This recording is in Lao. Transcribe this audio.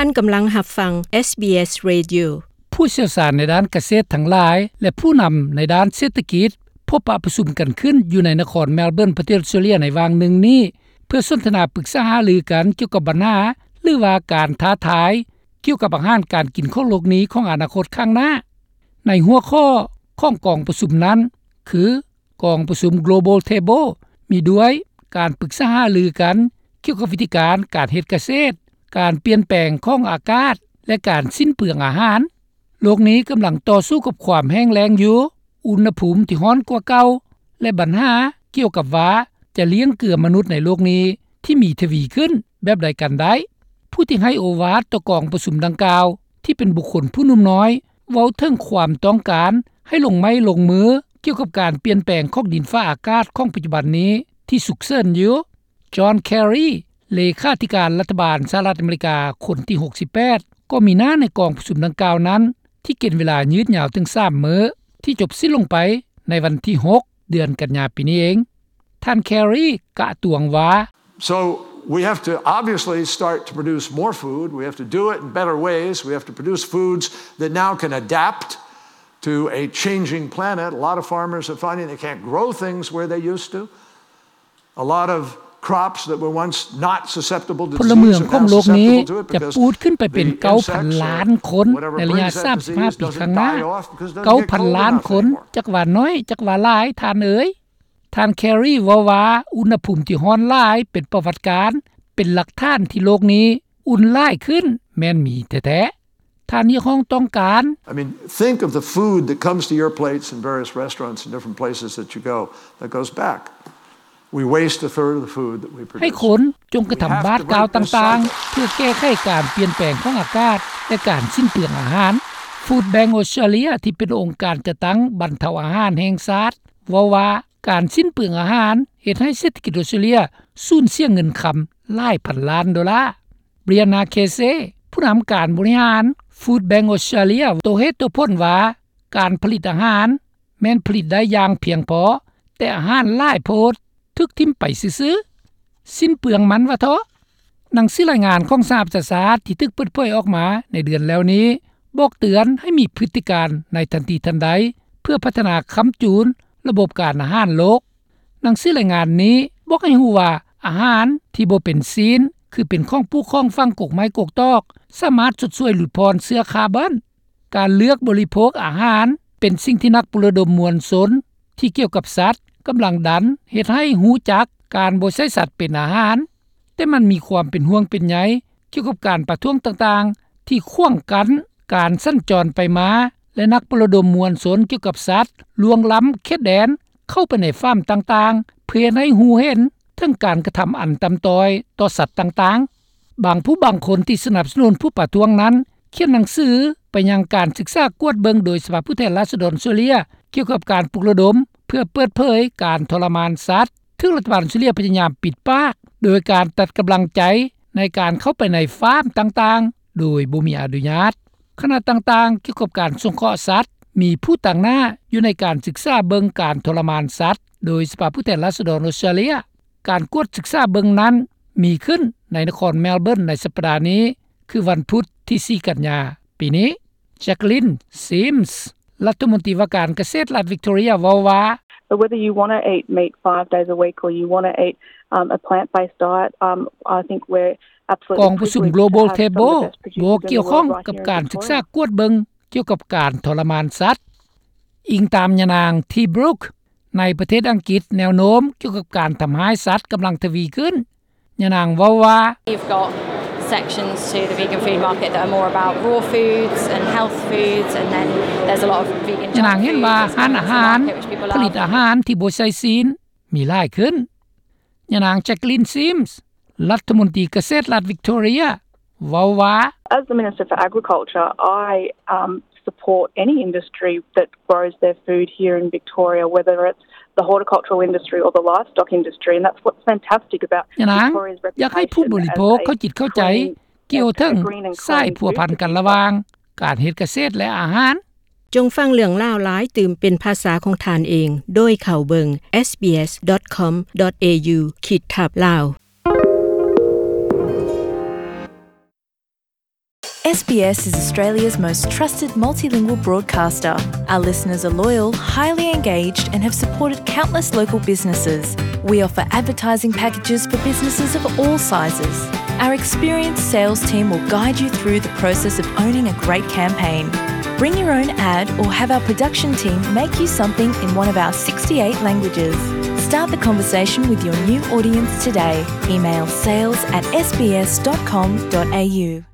ທ່ານກຳລັງຮັບຟັງ ເອສບີເອສ Radio. ຜູ້ຊ່ຽວຊານໃນດ້ານກະເສດທັງຫຼາຍ ແລະ ຜູ້ນຳໃນດ້ານເສດຖະກິດ ພົບປະປະຊຸມກັນຂຶ້ນຢູ່ໃນນະຄອນເມລເບີນ ປະເທດອອສເຕຣເລັຍໃນຫວ່າງໜຶ່ງນີ້ ເພື່ອສົນທະນາປຶກສາຫາລືກັນກ່ຽວກັບບັນຫາ ຫຼືວ່າການທ້າທາຍ ກ່ຽວກັບອາຫານການກິນຂອງໂລກນີ້ຂອງອະນາຄົດຂ້າງໜ້າ. ໃນຫົວຂໍ້ຂອງກອງປະຊຸມນັ້ນ ຄື ກອງປະຊຸມ Global Table ມີດ້ວຍການປຶກສາຫາລືກັນກ່ຽວກັບວິທີການການເຮັດກະເສດ, ການປ່ຽນແປງຂອງອາກາດ ແລະ ການສິ້ນເປືອງອາຫານ. ໂລກນີ້ກຳລັງຕໍ່ສູ້ກັບຄວາມແຫ້ງແລ້ງຢູ່, ອຸນຫະພູມທີ່ຮ້ອນກວ່າເກົ່າ ແລະ ບັນຫາກ່ຽວກັບວ່າຈະລ້ຽງເກືອມະນຸດໃນໂລກນີ້ທີ່ມີທະວີຂຶ້ນແບບໃດກັນໄດ້. ຜູ້ທີ່ໃຫ້ໂອວາດຕໍ່ກອງປະຊຸມດັ່ງກ່າວ ທີ່ເປັນບຸກຄົນຜູ້ໜຸ່ມນ້ອຍ ເວົ້າເຖິງຄວາມຕ້ອງການໃຫ້ລົງໄມ້ລົງມືກ່ຽວກັບການປ່ຽນແປງຂອງດິນຟ້າອາກາດຂອງປັດຈຸບັນນີ້ທີ່ສຸກເສີນຢູ່. ຈອນ ແຄຣີ ເລຂາທິການລັດຖະບານສະຫະລັດອາເມລິກາຄົນທີຫົກສິບແປດ ກໍມີໜ້າໃນກອງປະຊຸມດັ່ງກ່າວນັ້ນ ທີ່ກິນເວລາຍືດຍາວເຖິງສາມມື້ ທີ່ຈົບສິ້ນລົງໄປໃນວັນທີຫົກ ເດືອນກັນຍາປີນີ້ເອງ. ທ່ານ ແຄຣີ ກະຕວງວ່າ So we have to obviously start to produce more food. We have to do it in better ways. We have to produce foods that now can adapt to a changing planet. A lot of farmers are finding they can't grow things where they used to. A lot of crops that were once not susceptible to disease are now susceptible to it because the insects, whatever breeds that these insects are, ພົນລະເມືອງຂອງໂລກນີ້ຈະປູດຂຶ້ນໄປເປັນເກົ້າພັນລ້ານຄົນໃນໄລຍະສາມສິບຫ້າປີຂ້າງໜ້າ. ເກົ້າພັນລ້ານຄົນ, ຈັກວ່າໜ້ອຍ ຈັກວ່າຫຼາຍ, ທ່ານເອີຍ. ທ່ານ ແຄຣີ ເວົ້າວ່າ ອຸນຫະພູມທີ່ຮ້ອນຫຼາຍເປັນປະຫວັດການ, ເປັນຫຼັກຖານທີ່ໂລກນີ້ອຸ່ນຫຼາຍຂຶ້ນ ແມ່ນມີແທ້ໆ. ທ່ານຮຽກຮ້ອງຕ້ອງການ I mean, think of the food that comes to your plates in various restaurants in different places that you go that goes back. We waste a third of the food that we produce. ໃຫ້ຄົນຈົ່ງກະທຳບາດກ້າວຕ່າງໆ ເພື່ອແກ້ໄຂການປ່ຽນແປງຂອງອາກາດ ແລະ ການສິ້ນເປືອງອາຫານ. Food Bank Australia ທີ່ເປັນອົງການຈັດຕັ້ງບັນເທົາອາຫານແຫ່ງຊາດ ເວົ້າວ່າ ການສິ້ນເປືອງອາຫານເຮັດໃຫ້ເສດຖະກິດອອສເຕຣເລຍສູນເສຍເງິນຄຳຫຼາຍພັນລ້ານໂດລາ. Brianna Casey ຜູ້ນຳການບໍລິຫານ Food Bank Australia ໂຕເຫດໂຕຜົນວ່າ ການຜະລິດອາຫານແມ່ນຜະລິດໄດ້ຢ່າງພຽງພໍ, ແຕ່ອາຫານຫຼາຍໂພດຖືກຖິ້ມໄປຊື່ໆ, ສິ້ນເປືອງມັນວ່າເທາະ. ໜັງສືລາຍງານຂອງສະຫະປະຊາຊາດທີ່ຖືກເປີດເຜີຍອອກມາໃນເດືອນແລ້ວນີ້ ບອກເຕືອນໃຫ້ມີພຶດຕິການໃນທັນທີທັນໃດ ເພື່ອພັດທະນາຄ້ຳຈູນລະບົບການອາຫານໂລກ. ໜັງສືລາຍງານນີ້ບອກໃຫ້ຮູ້ວ່າ ອາຫານທີ່ບໍ່ເປັນຊີ້ນ ຄືເປັນຂອງປູກຂອງຝັງ ກົກໄມ້ກົກຕອກ ສາມາດຊົດຊ່ວຍຫຼຸດຜ່ອນເຊື້ອຄາບອນ. ການເລືອກບໍລິໂພກອາຫານເປັນສິ່ງທີ່ນັກປຸກລະດົມມວນຊົນທີ່ກ່ຽວກັບສັດກຳລັງດັນເຮັດໃຫ້ຮູ້ຈັກການບໍ່ໃຊ້ສັດເປັນອາຫານ, ແຕ່ມັນມີຄວາມເປັນຫ່ວງເປັນໃຍກ່ຽວກັບການປະທ້ວງຕ່າງໆ ທີ່ຂວາງກັ້ນການສັນຈອນໄປມາ ແລະ ນັກປຸກລະດົມມວນຊົນກ່ຽວກັບສັດລ່ວງລ້ຳເຂດແດນເຂົ້າໄປໃນຟາມຕ່າງໆ ເພື່ອເຮັດໃຫ້ຮູ້ເຫັນເຖິງການກະທຳອັນຕ່ຳຕ້ອຍຕໍ່ສັດຕ່າງໆ. ບາງຜູ້ບາງຄົນທີ່ສະໜັບສະໜູນຜູ້ປະທ້ວງນັ້ນ ຂຽນໜັງສືໄປຍັງການສຶກສາກວດເບິ່ງໂດຍສະພາຜູ້ແທນລາຊະດອນເຊີເລຍ ກ່ຽວກັບການປຸກລະດົມເພື່ອເປີດເຜີຍການທໍລະມານສັດ ຖືກລັດຖະບານເຊີເລຍພະຍາຍາມປິດປາກ ໂດຍການຕັດກຳລັງໃຈໃນການເຂົ້າໄປໃນຟາມຕ່າງໆ ໂດຍບໍ່ມີອະນຸຍາດ. ຄະນະຕ່າງໆກ່ຽວກັບການສົງເຄາະສັດ ມີຜູ້ຕາງໜ້າຢູ່ໃນການສຶກສາເບິ່ງການທໍລະມານສັດ ໂດຍສະພາຜູ້ແທນລາຊະດອນອອສເຕຣເລຍ. ການກວດສຶກສາເບິ່ງນັ້ນມີຂຶ້ນໃນນະຄອນເມລເບີນໃນສັບປະດານີ້ ຄືວັນພຸດທີສີ່ກັນຍາປີນີ້. Jacqueline Sims ລັດຖະມົນຕີວ່າການກະເສດລັດວິກຕໍເຣຍ ເວົ້າວ່າ So whether you want to eat meat five days a week or you want to eat, um, a plant-based diet, um, I think we're absolutely privileged to have some of the best producers in the world right here in Victoria. ກອງປະຊຸມ Global Table ບໍ່ກ່ຽວຂ້ອງກັບການສຶກສາກວດເບິ່ງກ່ຽວກັບການທໍລະມານສັດ. ອີງຕາມຍານາງ T Brook ໃນປະເທດອັງກິດ ແນວໂນ້ມກ່ຽວກັບການທຳຮ້າຍສັດກຳລັງທະວີຂຶ້ນ. ຍານາງເວົ້າວ່າ You've got sections to the vegan food market that are more about raw foods and health foods, and then there's a lot of vegan junk foods, ຍານາງເຫັນວ່າຮ້ານອາຫານຜະລິດອາຫານທີ່ບໍ່ໃສ່ຊີ້ນມີຫຼາຍຂຶ້ນ. ຍານາງ Jacqueline Sims ລັດຖະມົນຕີກະເສດລັດວິກຕໍເຣຍ ເວົ້າວ່າ As the Minister for Agriculture, I, um, support any industry that grows their food here in Victoria, whether it's the horticultural industry or the livestock industry, and that's what's fantastic about Victoria's reputation as a clean, a green and clean food community. ຍານາງຢາກໃຫ້ຜູ້ບໍລິໂພກເຂົ້າຈິດເຂົ້າໃຈກ່ຽວເຖິງສາຍພົວພັນກັນລະຫວ່າງການເຮັດກະເສດ ແລະ ອາຫານ. ຈົ່ງຟັງເລື່ອງລາວຫຼາຍຕື່ມເປັນພາສາຂອງທ່ານເອງ ໂດຍເຂົ້າເບິ່ງ SBS dot com dot au ຂີດທັບ Lao. S B S is Australia's most trusted multilingual broadcaster. Our listeners are loyal, highly engaged, and have supported countless local businesses. We offer advertising packages for businesses of all sizes. Our experienced sales team will guide you through the process of owning a great campaign. Bring your own ad or have our production team make you something in one of our sixty-eight languages. Start the conversation with your new audience today. Email sales at S B S dot com dot A U.